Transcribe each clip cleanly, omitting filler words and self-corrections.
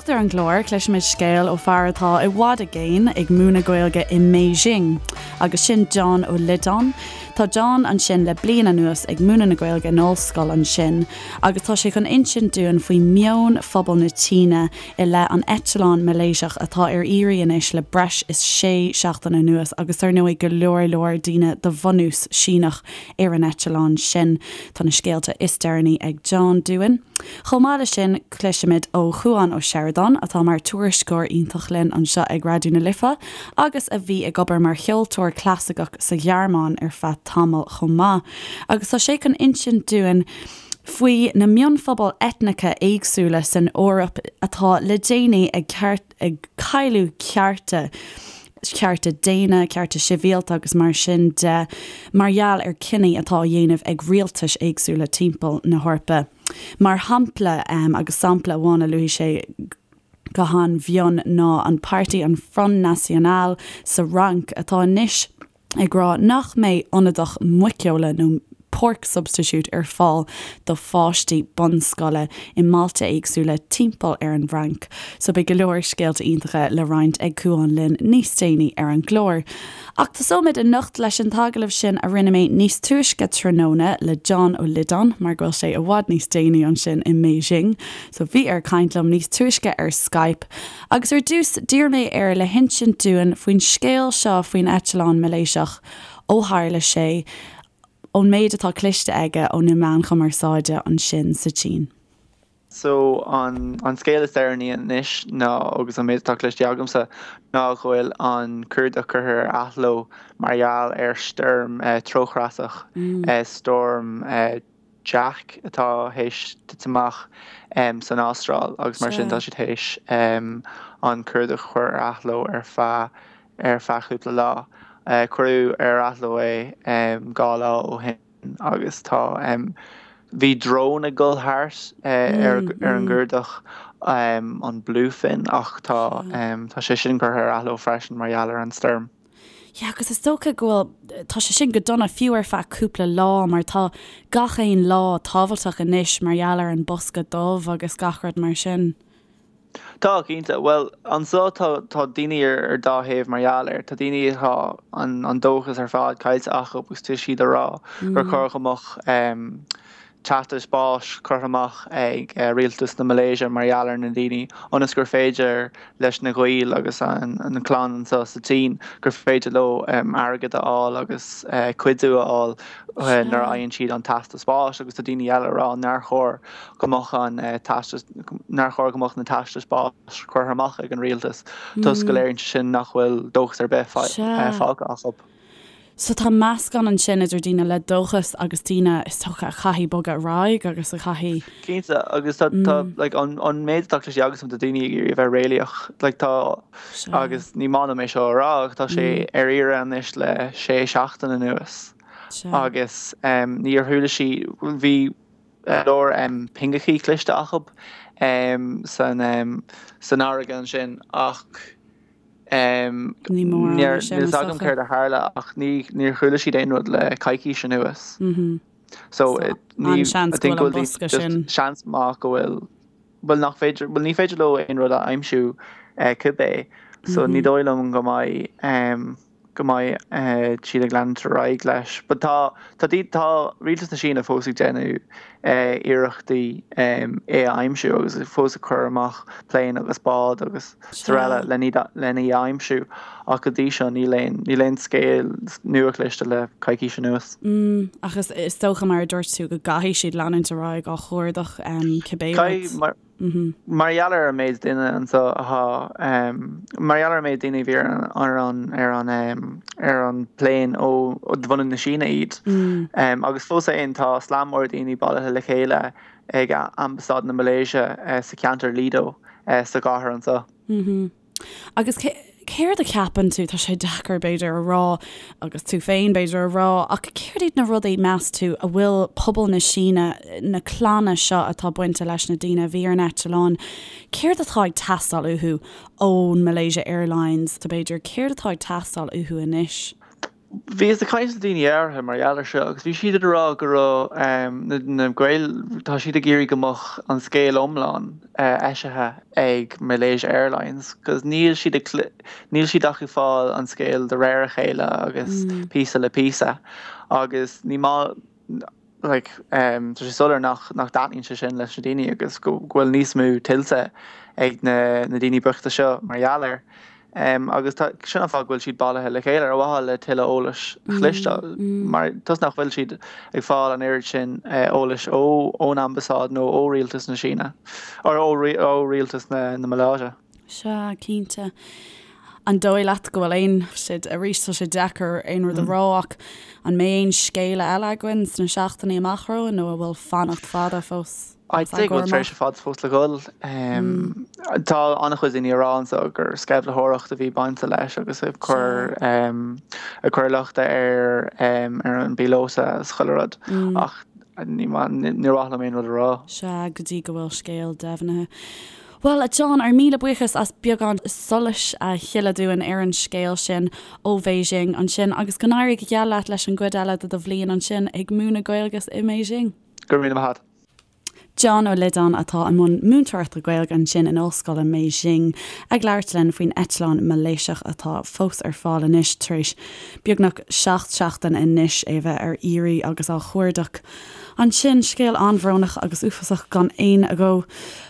Anocht ar an gclár, cloisfimid scéal ó fear atá i bhfad i gcéin ag múineadh Gaeilge i mBeijing, agus sin John Ó Loideáin. Tá John ansin le bliain anuas ag múineadh na Gaeilge in ollscoil ansin, agus tá sé chun insint dúinn faoi meon phobal na tSíne i leith an eitleáin Malaeisiach atá ar iarraidh anois le breis is sé seachtaine anuas agus dar ndóigh go leor leor daoine de bhunús Síneach ar an eitleán sin. Tá na scéalta is deireanaí ag John dúinn. Chomh maith leis sin, cloisfimid ó Chuan Ó Seireadáin, atá mar tuairisceoir iontach linn anseo ag Raidió na Life agus a bhí ag obair mar cheoltóir clasaiceach sa Ghearmáin ar feadh tamaill chomh maith. Agus tá sé chun insint dúinn faoi na mionphobail eitneacha éagsúla san Eoraip atá le déanaí ag ag cailleadh cearta, cearta daonna, cearta sibhialta agus mar sin de, mar gheall ar cinní atá á dhéanamh ag rialtais éagsúla timpeall na hEorpa. Mar shampla, agus sampla amháin a luaigh sé go han-mhion ná an páirtí an Front National sa Fhrainc atá anois ag rá nach mbeidh ionadach muiceola nó pork substitute ar fáil do pháistí bunscoile i mbailte éagsúla timpeall ar an bhFrainc. So beidh go leor scéalta iontacha le roinnt ag Cuán linn níos déanaí ar an gclár. Ach tosóimid anocht leis an t-agallamh sin a rinne mé níos túisce tráthnóna le John Ó Loideáin mar go bhfuil sé i bhfad níos déanaí ansin i mBeijing. So bhí air caint liom níos túisce ar Skype. Agus ar dtús, d'iarr mé air le hinsint dúinn faoin scéal seo faoin eitleán Malaeisiach, ó tharla sé, ón méid atá cloiste aige ó na meáin chumarsáide ansin sa tSín. So, an an scéal is deireanaí anois ná, agus an méid atá cloiste agamsa, ná go bhfuil an cuardach curtha ar athló mar gheall ar stoirm treochreasach, Storm Jack atá théis titim amach san Astráil agus mar sin tá siad théis an cuardach a chur ar athló ar feadh ar feadh cúpla lá. Cuireadh ar athló é 2 lá ó shin agus tá bhí drón ag dul thart ar ar an gcuardach an Bluefin ach tá tá sé sin curtha ar athló freisin mar gheall ar an stoirm. Yeah, agus is dócha go bhfuil, tá sé sin go dona fiú ar feadh cúpla lá mar tá gach aon lá tábhachtach anois mar gheall ar an bosca dubh agus gach rud mar sin. Tá, cinnte. Bhuel, anseo tá, tá daoine ar, ar dá thaobh mar gheall air. Tá daoine atá an, an dóchas ar fad caillte acu agus tá siad ag rá gur chóir go mbeadh teastas báis curtha amach ag rialtas na Malaeisia mar gheall ar na daoine ionas gur féidir leis na gaoil agus an clann anseo sa tSín gur féidir leo airgead a fháil agus cuidiú a fháil nuair a fhaigheann siad an teastas báis agus tá daoine eile ag rá nár chóir go mbeadh an teastas nár chóir go mbeadh na teastais báis curtha amach ag an rialtas toisc go léiríonn sé sin nach bhfuil dóchas ar bith fágtha acu. So tá meascán ansin idir daoine le dóchas agus daoine is dócha a chaithfidh bogadh ar aghaidh agus a chaithfidh. Cinnte, agus tá, tá, like, an, an méid atá cloiste agamsa tá daoine ag iarraidh a bheith réalaíoch, like, tá, agus ní maith liom é seo a rá ach tá sé ar iarraidh anois le sé seachtain anuas agus níor chuala siad, bhí leor pingeachaí cloiste acu san, san fharraige ansin ach. Ní mórán é sin, Níl a fhios agam céard a tharla ach níor chuala siad aon rud le coicís anuas. So an-seans go bhfuil an bosca sin. Seans maith go bhfuil, bhuel nach féidir, bhuel ní féidir leo aon rud a aimsiú cibé. So ní dóigh liom go mbeidh go mbeidh siad ag leanúint ar aghaidh leis. But tá tá tá rialtas na Síne fós ag déanamh iarrachtaí é a aimsiú agus fós ag cur amach plane agus bád agus araile len í a aimsiú ach go dtí seo níl aon níl aon scéal nua cloiste le coicís anuas. Ach is is dócha mar a dúirt tú go gcaithfidh siad leanúint ar aghaidh á chuardach cibé rud. Mar gheall ar an méid duine anseo atá, mar gheall ar an méid daoine a bhí ar an ar an ar an bplane ó de bhunadh na Síne iad. Agus fós féin tá slám mór daoine bailithe le chéile ag Ambasáid na Malaeisia sa cheantar Lido sa gcathair anseo. Agus céard a cheapann tú, tá sé deacair b'fhéidir a rá agus tú féin b'fhéidir a rá, ach céard iad na rudaí meas tú a bhfuil pobal na Síne, na clanna seo atá bainte leis na daoine a bhí ar an eitleán, céard atá ag teastáil uathu ón Malaysia Airlines, b'fhéidir, céard atá ag teastáil uathu anois? Bhíos ag caint le daoine áirithe mar gheall air seo agus bhí siad ag rá go raibh na Gaeil, tá siad ag iarraidh go mbeadh an scéal iomlán eisithe ag Malaysia Airlines cos níl siad ag, níl siad ach ag fáil an scéal de réir a chéile agus píosa le píosa agus ní maith, like, tá sé soiléir nach, nach dtaitníonn sé sin leis na daoine agus go bhfuil níos mó tuillte ag na, na daoine bochta seo mar gheall air. Agus tá, sin an fáth go bhfuil siad bailithe le chéile ar mhaithe le tuilleadh eolais a chloisteáil mar toisc nach bhfuil siad ag fáil an oiread sin eolais ó, ón ambasáid nó ó rialtas na Síne, or ó, ó rialtas na, na Maláise. Sea, cinnte. An dóigh leat go bhfuil aon, siad, arís tá sé deacair aon rud a rá ach an mbeidh aon scéala eile againn sna seachtainí amach romhainn nó an bhfuil fanacht fada fós? I'd say go bhfuil tréimhse fada fós le dhul. Tá an-chuid daoine ag rá anseo gur sceimhlitheoireacht a bhí bainte leis agus ag cur ag cur lochta ar ar an bpíolóta is chuile rud ach ní níor mhaith liom aon rud a rá. Sea, go dtí go bhfuil scéal deimhnithe. Bhuel, a John, ár míle buíochas as beagán solais a shileadh dúinn ar an scéal sin ó Bheijing ansin agus go n-éirí go geal leat leis an gcuid eile de do bhliain ansin ag múineadh Gaeilge i mBeijing. Go raibh míle maith agat. John Ó Loideáin atá i mbun múinteoireachta Gaeilge ansin in Ollscoil i mBeijing ag labhairt linn faoin eitleán Malaeisiach atá fós ar fáil anois tar éis beagnach 7 seachtain anois é a bheith ar iarraidh agus á chuardach Ansin, scéal an-bhrónach agus uafásach gan aon agó.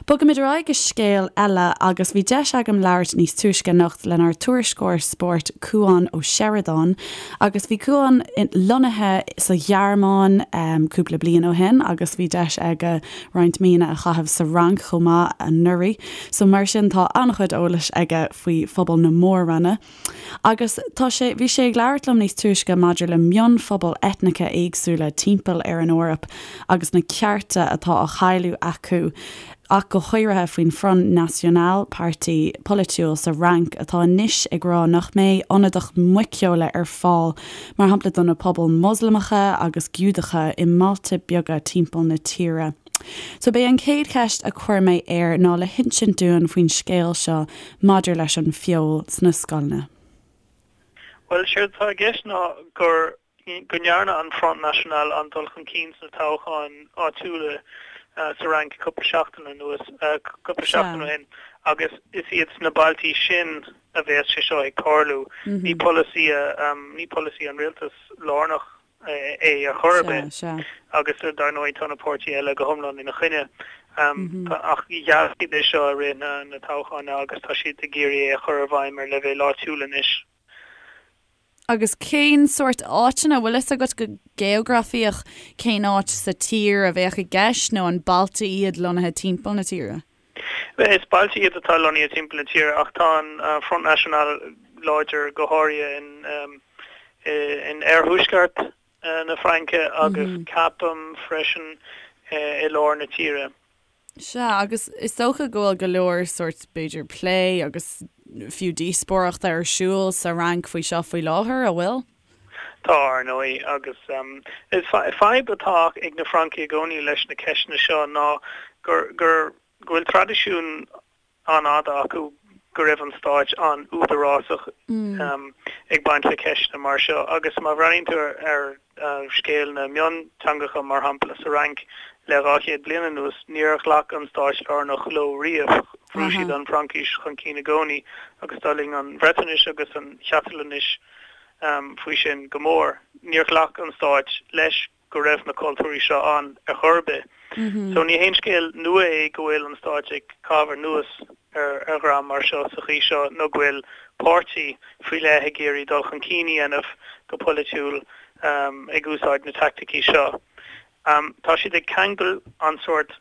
Bogaimid ar aghaidh go scéal eile agus bhí deis agam labhairt níos túisce anocht lenár tuairisceoir spóirt Cuán Ó Seireadáin agus bhí Cuán lonnaithe sa Ghearmáin cúpla bliain ó shin agus bhí deis aige roinnt míonna a chaitheamh sa Fhrainc chomh maith anuraidh so mar sin tá an-chuid eolais aige faoi phobal na mór-roinne. Agus tá sé, bhí sé ag labhairt liom níos túisce maidir le mionphobail eitneacha éagsúla timpeall ar an Eoraip agus na cearta atá á chailleadh acu, ach go háirithe faoin Front National, páirtí polaitiúil sa Fhrainc atá anois ag rá nach mbeidh ionadaíocht muiceola ar fáil, mar shampla do na pobail Moslamacha agus Giúdacha i mbailte beaga timpeall na tíre. So b'é an chéad cheist a chuir mé air ná le hinsint dúinn faoin scéal seo maidir leis an feoil sna scoileanna. Bhuel, séard atá i gceist ná gur, go ndearna an Front National an-dul chun cinn sna toghcháin áitiúla sa Fhrainc cúpla seachtain anuas, cúpla seachtain ó shin, agus is iad sna bailtí sin a bheas sé seo ag tarlú. Ní polasaí, ní polasaí an rialtas lárnach é ar chor ar bith agus dar ndóigh tá na páirtithe eile go hiomlán ina choinne. Ach gheall siad é seo i rith na toghcháin agus tá siad ag iarraidh é a chur i bhfeidhm ar leibhéal áitiúil anois. Agus cén sórt áiteanna, bhfuil fhios agat go geografaíoch cén áit sa tír a bheadh i gceist nó an bailte iad lonnaithe timpeall na tíre? Is bailte iad atá lonnaithe timpeall na tíre ach tá an Front National láidir go háirithe in in oirthuaisceart na Fraince agus ceapaim freisin i lár na tíre. Sea, agus is dócha go bhfuil go leor sórt, b'fhéidir, plé agus fiú díospóireachta ar siúl sa Fhrainc faoi seo faoi láthair, an bhfuil? Tá, ar ndóigh, agus is fadhb atá ag na Francaigh i gcónaí leis na ceisteanna seo ná gur gur go bhfuil traidisiún an-fhada acu go raibh an stáit an-údarásach ag baint le ceisteanna mar seo agus má bhreathnaíonn tú ar scéal na mionteangacha, mar shampla, sa Fhrainc le 200 bliain anuas, níor ghlac an stáit lárnach leo riamh. Bhrú siad an Fhraincis chun cinn i gcónaí agus d'fhulaing an Bhreatnais agus an Chatalóinis faoi sin go mór. Níor ghlac an stáit leis go raibh na cultúirí seo ann ar chor ar bith. So ní haon scéal nua é go bhfuil an stáit ag caitheamh anuas ar ar dhream mar seo sa chaoi seo nó go bhfuil páirtí faoi leith ag iarraidh dul chun cinn a dhéanamh go polaitiúil ag úsáid na teaicticí seo. Tá siad ag ceangal an sórt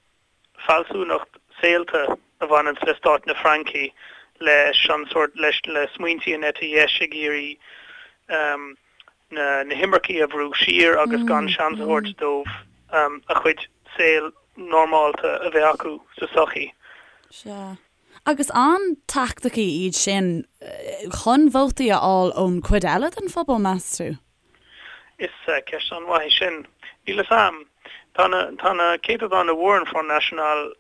fealsúnacht saolta a bhaineanns le stát na Fraince leis an sórt, leis, le smaointí an eite dheis ag iarraidh na, na himircigh a bhrú siar agus gan seans a thabhairt dóibh a chuid saol normálta a bheith acu sa sochaí. Sea. Agus an teaicticí iad sin chun vótaí a fháil ón chuid eile den phobal, meas tú? Is ceist an-mhaith í sin. Níl fhios a'm. Tá na, tá na céatadáin a bhfuair an Front National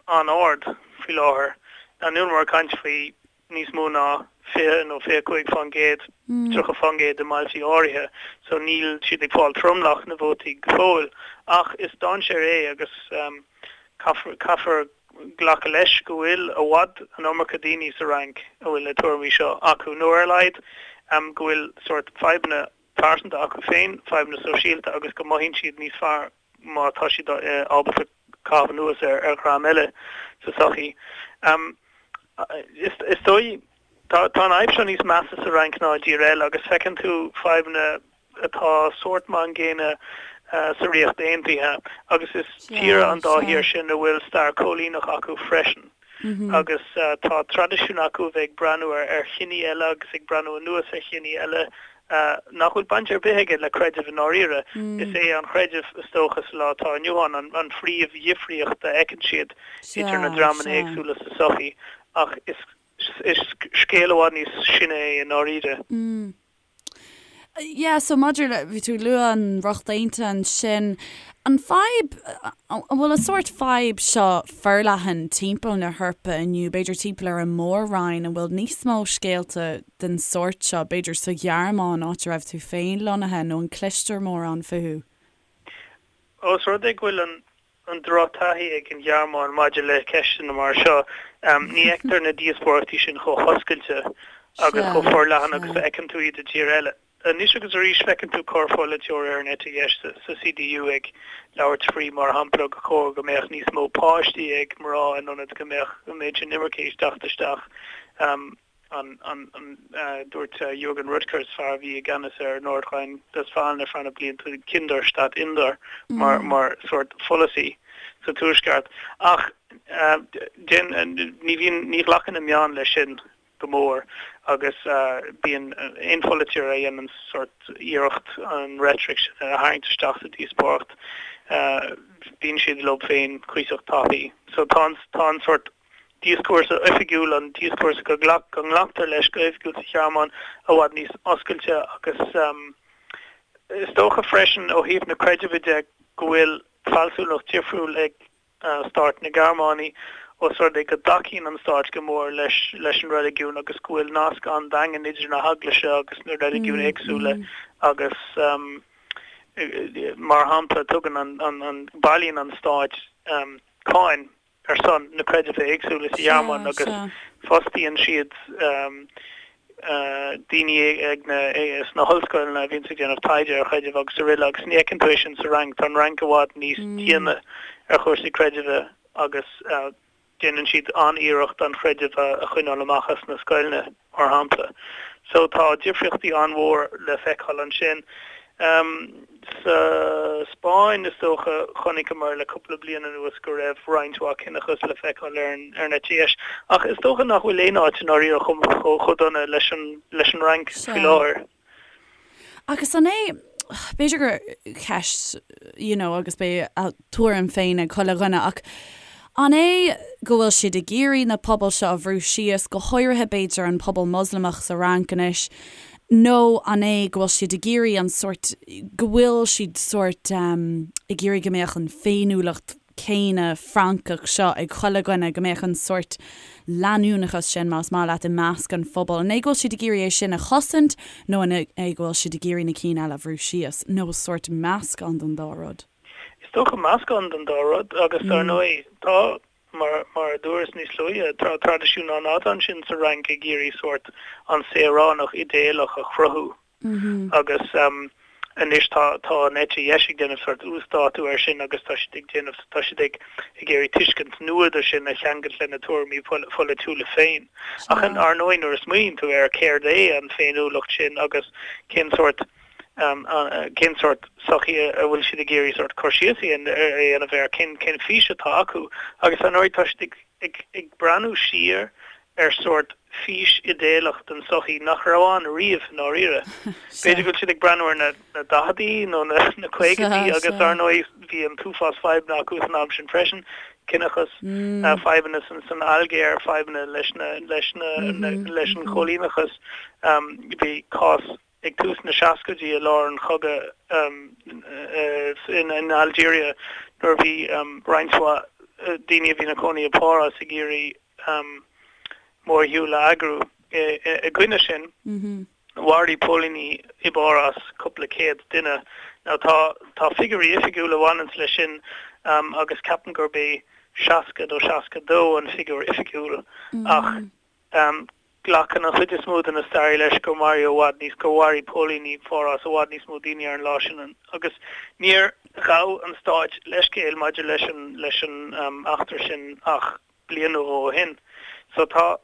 an-ard faoi láthair. Níl muid ag caint faoi. níos mó ná 20 nó 25%, 30% i mbailtí áirithe, so níl siad ag fáil tromlach na vótaí go fóill. Ach is dainséar é agus caithfear, caithfear glacadh leis go bhfuil i bhfad an iomarca daoine sa Fhrainc a bhfuil na tuairimí seo acu, nó ar a laghad go bhfuil sórt fadhbanna pearsanta acu féin, fadhbanna sóisialta agus go mothaíonn siad níos fearr má tá siad ábalta caitheamh anuas ar dhream eile sa tsochaí. Is dóigh, tá an fhadhb seo níos measa sa Fhrainc ná i dtír eile agus feiceann tú fadhbanna atá sórt mar an gcéanna sa Ríocht Aontaithe agus is tíortha an dá thír sin a bhfuil stair choilíneach acu freisin agus tá traidisiún acu a bheith ag breathnú ar chiní eile agus ag breathnú anuas ar chiní eile nach bhfuil baint ar bith aige le creideamh i ndáiríre. Is é an creideamh, is dócha, sa lá atá inniu ann, an phríomhdhifríocht a fheiceann siad idir na dreamanna éagsúla sa tsochaí. Ach is scéal i bhfad níos sine é i ndáiríre. Yeah, so maidir le, bhí tú ag lua an Ríocht Aontaithe ansin, an fadhb, an bhfuil an sórt fadhb seo forleathan timpeall na hEorpa inniu, b'fhéidir timpeall ar an Mór-Roinn, an bhfuil níos mó scéalta den sórt seo, b'fhéidir sa Ghearmáin, áit a raibh tú féin lonnaithe, nó an cloistear mórán fúthu? Ós rud é go bhfuil an drochtaithí ag an Ghearmáin maidir le ceisteanna mar seo, ní fheictear na díospóireachtaí sin chomh hoscailte agus chomh forleathan agus a fheiceann tú iad i dtír eile. Anois agus arís feiceann tú corrpholaiteoir ar an eite dheis sa CDU ag labhairt faoi, mar shampla, gur chóir go mbeadh níos mó páistí ag mná in ionad go mbeadh an méid sin imirce ag teacht isteach. An, an, an, dúirt Jürgen Rüttgers, fear a bhí i gceannas ar Nordrhein-Westfalen ar feadh na blianta, Kinder statt Inder mar, mar sórt pholasaí sa Tuaisceart. Ach déan, ní bhíonn, ní ghlacann na meáin leis sin go mór agus bíonn aon pholaiteoir a dhéanann sórt iarracht an reitric sin a tharraingt isteach sa díospóireacht, bíonn siad leo féin cuíosach tapaidh. So tá an, tá an sórt díoscúrsa oifigiúil, an díoscúrsa go nglactar leis go hoifigiúil sa Ghearmáin, i bhfad níos oscailte agus is dócha freisin ó thaobh na creidimhe de go bhfuil fealsúnacht difriúil ag stát na Gearmáine os rud é go dtacaíonn an stát go mór leis leis an reiligiún agus go bhfuil nasc an-daingean idir na heaglaise agus na reiligiúin éagsúla agus mar shampla tugann an an bailíonn an stát cáin ar son na creidimhe éagsúla sa Ghearmáin agus fostaíonn siad daoine ag na sna hollscoileanna a bhíonns ag déanamh taighde ar chreidimh agus araile agus ní fheiceann tú é sin sa Fhrainc. Tá an Fhrainc i bhfad níos diana ar chúrsaí creidimhe agus déanann siad an-iarracht an chreideamh a choinneáil amach as na scoileanna. mar shampla. So tá difríochtaí an-mhór le feiceáil ansin. Sa Spáinn, is dócha, chonaiceamar le cúpla bliain anuas go raibh roinnt mhaith ciníochas le feiceáil ar an ar an eite dheis. Ach is dócha nach bhfuil aon áit i ndáiríre chomh chomh dona leis an leis an Fhrainc faoi láthair. Agus an é, b'fhéidir gur ceist, you know, agus beidh a tuairim féin ag chuile dhuine, ach an é go bhfuil siad ag iarraidh na pobail seo a bhrú síos, go háirithe b'fhéidir an pobal Moslamach sa Fhrainc anois, nó an é go bhfuil siad ag iarraidh an sórt, go bhfuil siad sórt ag iarraidh go mbeadh an féiniúlacht céanna Francach seo ag chuile dhuine, go mbeadh an sórt leanúnachas sin, más maith leat, i measc an phobail. An é go bhfuil siad ag iarraidh é sin a chosaint nó an é go bhfuil siad ag iarraidh na cinn eile a bhrú síos, nó sórt meascán den dá rud? Is dócha meascán den dá rud agus dar ndóigh tá, mar mar a dúras níos luaithe, tá traidisiún an-fhada ansin sa Fhrainc ag iarraidh sórt an saoránach idéalach a chruthú. Agus anois tá tá an eite dheis ag déanamh sórt uasdátú air sin agus tá siad ag déanamh, tá siad ag ag iarraidh tuiscint nua de sin a cheangailt lena tuairimí polaitiúla féin. Ach ar ndóigh nuair a smaoiníonn tú air céard é an féiniúlacht sin agus cén sórt cén sórt sochaí a bhfuil siad ag iarraidh sórt cur síos a dhéanamh air, cén cén fís atá acu agus ar ndóigh tá siad ag ag ag breathnú siar ar sórt fís idéalach den tsochaí nach raibh ann riamh i ndáiríre. B'fhéidir go bhfuil siad ag breathnú ar na na daicheadaí nó na na caogaidí agus ar ndóigh bhí an t-uafás fadhbanna acu san am sin freisin, ciníochas, fadhbanna san san Ailgéir, fadhbanna leis na leis na leis an choilíneachas. Bhí cás ag tús na seascaidí i lár an chogaidh in Algeria nuair a bhí roinnt mhaith daoine a bhí ina cónaí i bPáras ag iarraidh. mórshiúl a eagrú i gcoinne sin. Mharaigh póilíní i bPáras cúpla céad duine. Now tá tá figiúirí oifigiúla a bhaineanns leis sin agus ceapaim gurb é 60 nó 62 an figiúr oifigiúil ach glacann an chuid is mó de na staraithe leis gur maraíodh i bhfad níos gur mharaigh póilíní Pháras i bhfad níos mó daoine ar an lá sin agus níor ghabh an stáit leithscéal maidir leis an leis an eachtra sin ach bliain nó dhó ó shin. So tá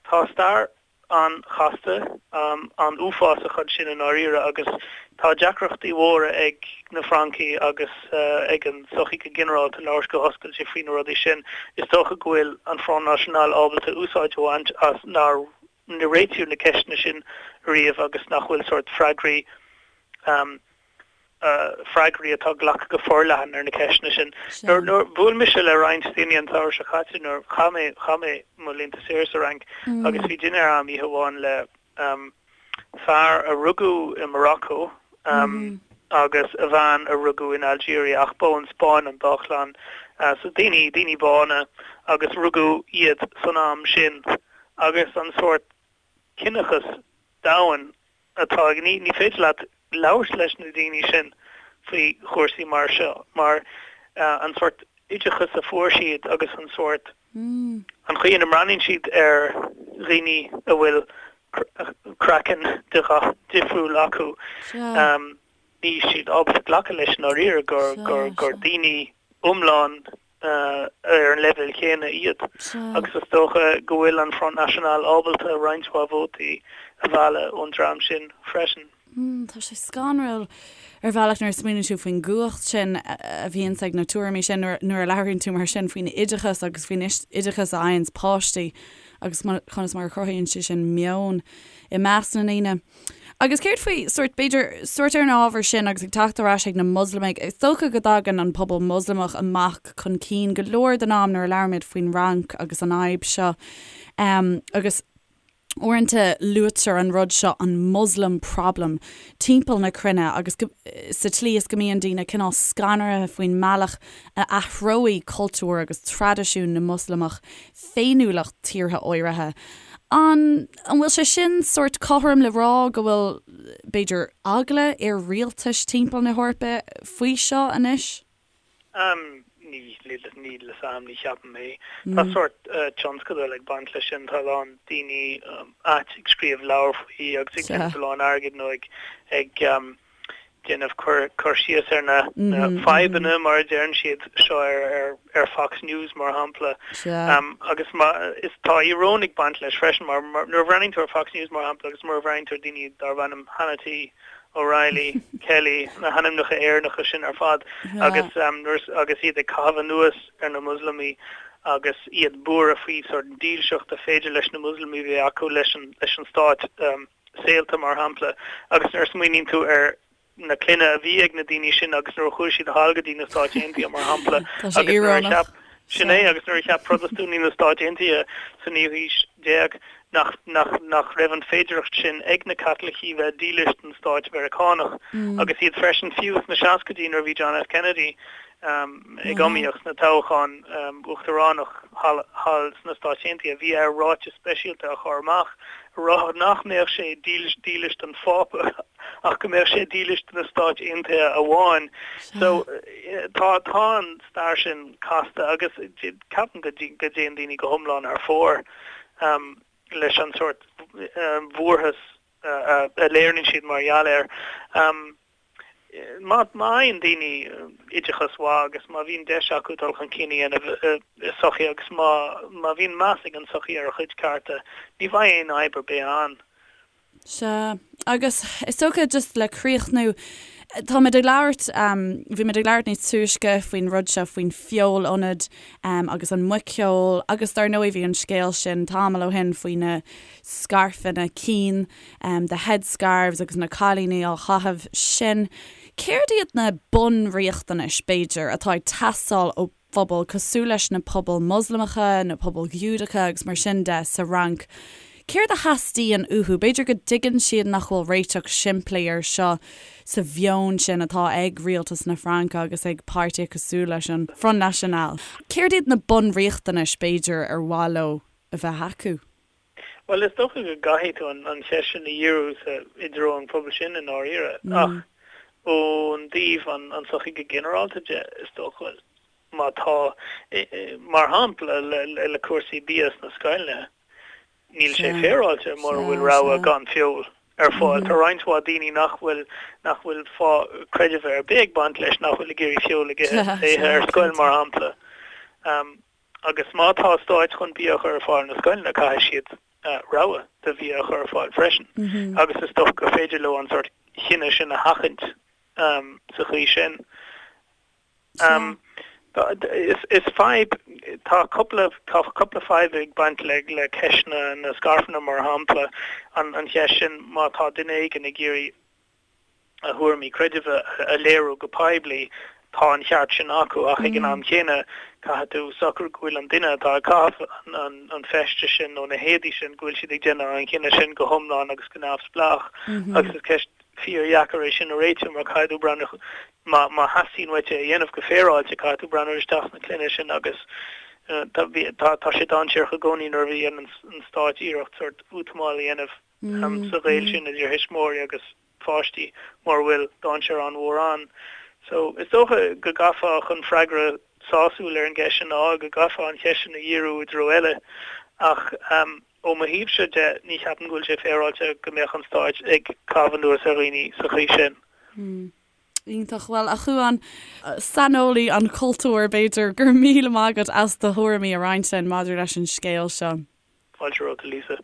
tá stair an-chasta, an-uafásach ansin i ndáiríre agus tá deacrachtaí mhóra ag na Francaigh agus ag an tsochaí go ginearálta labhairt go hoscailte faoi na rudaí sin. Is dócha go bhfuil an Front National ábalta úsáid a bhaint as nár réitíodh na ceisteanna sin riamh agus nach bhfuil sórt freagraí freagraí atá glactha go forleathan ar na ceisteanna sin. Nuair bhuail mise le roinnt daoine an tsamhradh seo caite nuair chaith mé chaith mé mo laethanta saoire sa Fhrainc agus bhí dinnéar a'm oíche amháin le fear a rugadh i Morocco agus a bhean a rugadh in Algeria ach ba ón Spáinn an dá chlann. So daoine daoine bána agus rugadh iad san am sin agus an sórt ciníochas domhain atá ag, ní féidir leat labhairt leis na daoine sin faoi chúrsaí mar seo mar an sórt oideachas a fuair siad agus an sórt, an chaoi ina mbreathnaíonn siad ar dhaoine a bhfuil craiceann de dhath difriúil acu, níl siad ábalta glacadh leis i ndáiríre gur, gur, gur daoine iomlán ar an leibhéal chéanna iad agus is dócha go bhfuil an Front National ábalta roinnt mhaith vótaí a mhealladh ón dream sin freisin. Tá sé scanrúil ar bhealach nuair a smaoiníonn tú faoin gcumhacht sin a bhíonns ag na tuairimí sin nuair a labhraíonn tú mar sin faoin oideachas agus faoin oideachas a fhaigheanns páistí agus conas mar a chruthaíonn sé sin meon i measc na ndaoine. Agus céard faoi, sórt, b'fhéidir, sórt ar an ábhar sin agus ag teacht ar ais ag na Moslamaigh, is dócha go dtagann an pobal Moslamach amach chun cinn go leor den am nuair a labhraímid faoin Fhrainc agus an fhadhb seo. Agus uaireanta luaitear an rud seo, an Muslim problem, timpeall na cruinne agus go, sa tslí is go mbíonn daoine cineál scanraithe faoin mbealach a athróidh cultúr agus traidisiún na Moslamach féiniúlacht tíortha áirithe. An an bhfuil sé sin sórt cothrom le rá go bhfuil, b'fhéidir, eagla ar rialtais timpeall na hEorpa faoi seo anois? Níl níl a fhios a'm, ní cheapaim é. Tá sórt tionscadal ag baint leis sin, tá a lán daoine ait ag scríobh leabhar faoi agus ag déanamh a lán airgid nó ag ag déanamh cur síos ar na fadhbanna, mar a deireann siad, seo ar Fox News, mar shampla. Agus is tá íoróin ag baint leis freisin, mar nuair a bhreathnaíonn tú ar Fox News, mar shampla, agus nuair a bhreathnaíonn tú ar daoine darb ainm Hannity, O'Reilly, Kelly, na hainmneacha Éireannacha sin ar fad, agus agus iad ag caitheamh anuas ar na Muslamaigh agus iad buartha faoi sort dílseacht a féidir leis na Muslamaigh bheith acu leis an stát. saolta, mar shampla, agus nuair a smaoiníonn tú ar na clainne a bhí ag na daoine sin agus nuair a chuaigh siad thall go dtí na Stáit Aontaithe, mar shampla, Tá sé agus nuair a íorónach. cheap, sin é, agus nuair a cheap Protastúnaigh na Stáit Aontaithe sa naoú haois déag nach, nach, nach raibh an féidearthacht sin ag na Caitlicigh bheith dílis don Stáit Mheiriceánach agus iad freisin, fiú sna seascaidí nuair a bhí John F. Kennedy ag iomaíocht sna toghcháin uachtaránach thall sna Stáit Aontaithe, bhí air ráiteas speisialta a chur amach a rá nach mbeadh sé dílis don Phápa ach go mbeadh sé dílis do na Stáit Aontaithe amháin. So tá tá an stair sin casta agus ceapaim go dtéann daoine go hiomlán thar fóir leis an sórt bhuarthas a léiríonn siad mar gheall air. Má fhaigheann daoine oideachas mhaith agus má bhíonn deis acu dul chun cinn a dhéanamh i sochaí agus má má bhíonn meas ag an tsochaí ar a chuid cearta, ní bheidh aon fhadhb ar bith ann. Sea. Agus is dócha just le críochnú, táimid ag labhairt, bhí muid ag labhairt níos túisce faoin rud seo, faoin feol-ionad agus an muiceoil agus dar ndóigh bhí an scéal sin tamall ó shin faoi na scairfeanna cinn, the headscarves agus na cailíní á chaitheamh sin. Céard iad na bunriachtanais, b'fhéidir, atá ag teastáil ó phobail cosúil leis na pobail Moslamacha, na pobail Ghiúdacha agus mar sin de sa Fhrainc? Céard a theastaíonn uathu? B'fhéidir go dtuigeann siad nach bhfuil réiteach simplí air seo sa mheon sin atá ag rialtas na Fraince agus ag páirtithe cosúil leis an Front National. Céard iad na bunriachtanais, b'fhéidir, ar mhaith leo a bheith acu? Bhuel, is dócha go gcaithfidh tú an cheist sin a dhíriú sa, i dtreo an phobail sin i ndáiríre, ach ón dtaobh an tsochaí go ginearálta de, is dócha, má tá, mar shampla, le cúrsaí bia sna scoileanna, níl sé féaráilte mura bhfuil rogha gan feoil ar fáil. Tá roinnt mhaith daoine nach bhfuil, nach bhfuil fáth creidimh ar bith ag baint leis, nach bhfuil ag iarraidh feoil a ithe ar scoil, mar shampla. Agus má tá stáit chun bia a chur ar fáil na scoileanna, caithfidh siad rogha de bhia a chur ar fáil freisin. Agus is dócha gur féidir leo an sórt chinneadh sin a sheachaint sa chaoi sin. Is fadhb, tá cúpla, tá cúpla fadhb ag baint le le ceist na na scairfeanna mar shampla, an cheist sin má tá duine éigin ag iarraidh a thuairimí creidimh a léiriú go poiblí, tá an cheart sin acu ach ag an am chéanna caithfidh tú socrú go bhfuil an duine atá ag caitheamh an feiste sin nó na héadaí sin, go bhfuil siad ag déanamh an chinneadh sin go hiomlán agus go neamhspleách agus is ceist fíordheacair é sin a réitiú mar caithfidh tú breathnú, má má theastaíonn uait é a dhéanamh go féaráilte, caithfidh tú breathnú isteach sna cloigne sin agus tá tá sé dainséarach i gcónaí nuair a dhéanann an stát iarracht sórt útamáil a dhéanamh sa ghaol sin idir thuismitheoirí agus pháistí mura bhfuil dainséar an-mhór ann. So, is dócha go gcaithfeá chun freagra sásúil ar an gceist sin a fháil, go gcaithfeá an cheist sin a dhíriú i dtreo eile. Ach ó mo thaobhse de, ní cheapaim go bhfuil sé féaráilte go mbeadh an stáit ag caitheamh anuas ar dhaoine sa chaoi sin. Iontach. Bhuel, a Chuáin, saineolaí an chultúir, b'fhéidir, go raibh míle maith agat as do thuairimí a roinnt linn maidir leis an scéal seo. Fáilte romhat, a Lisa.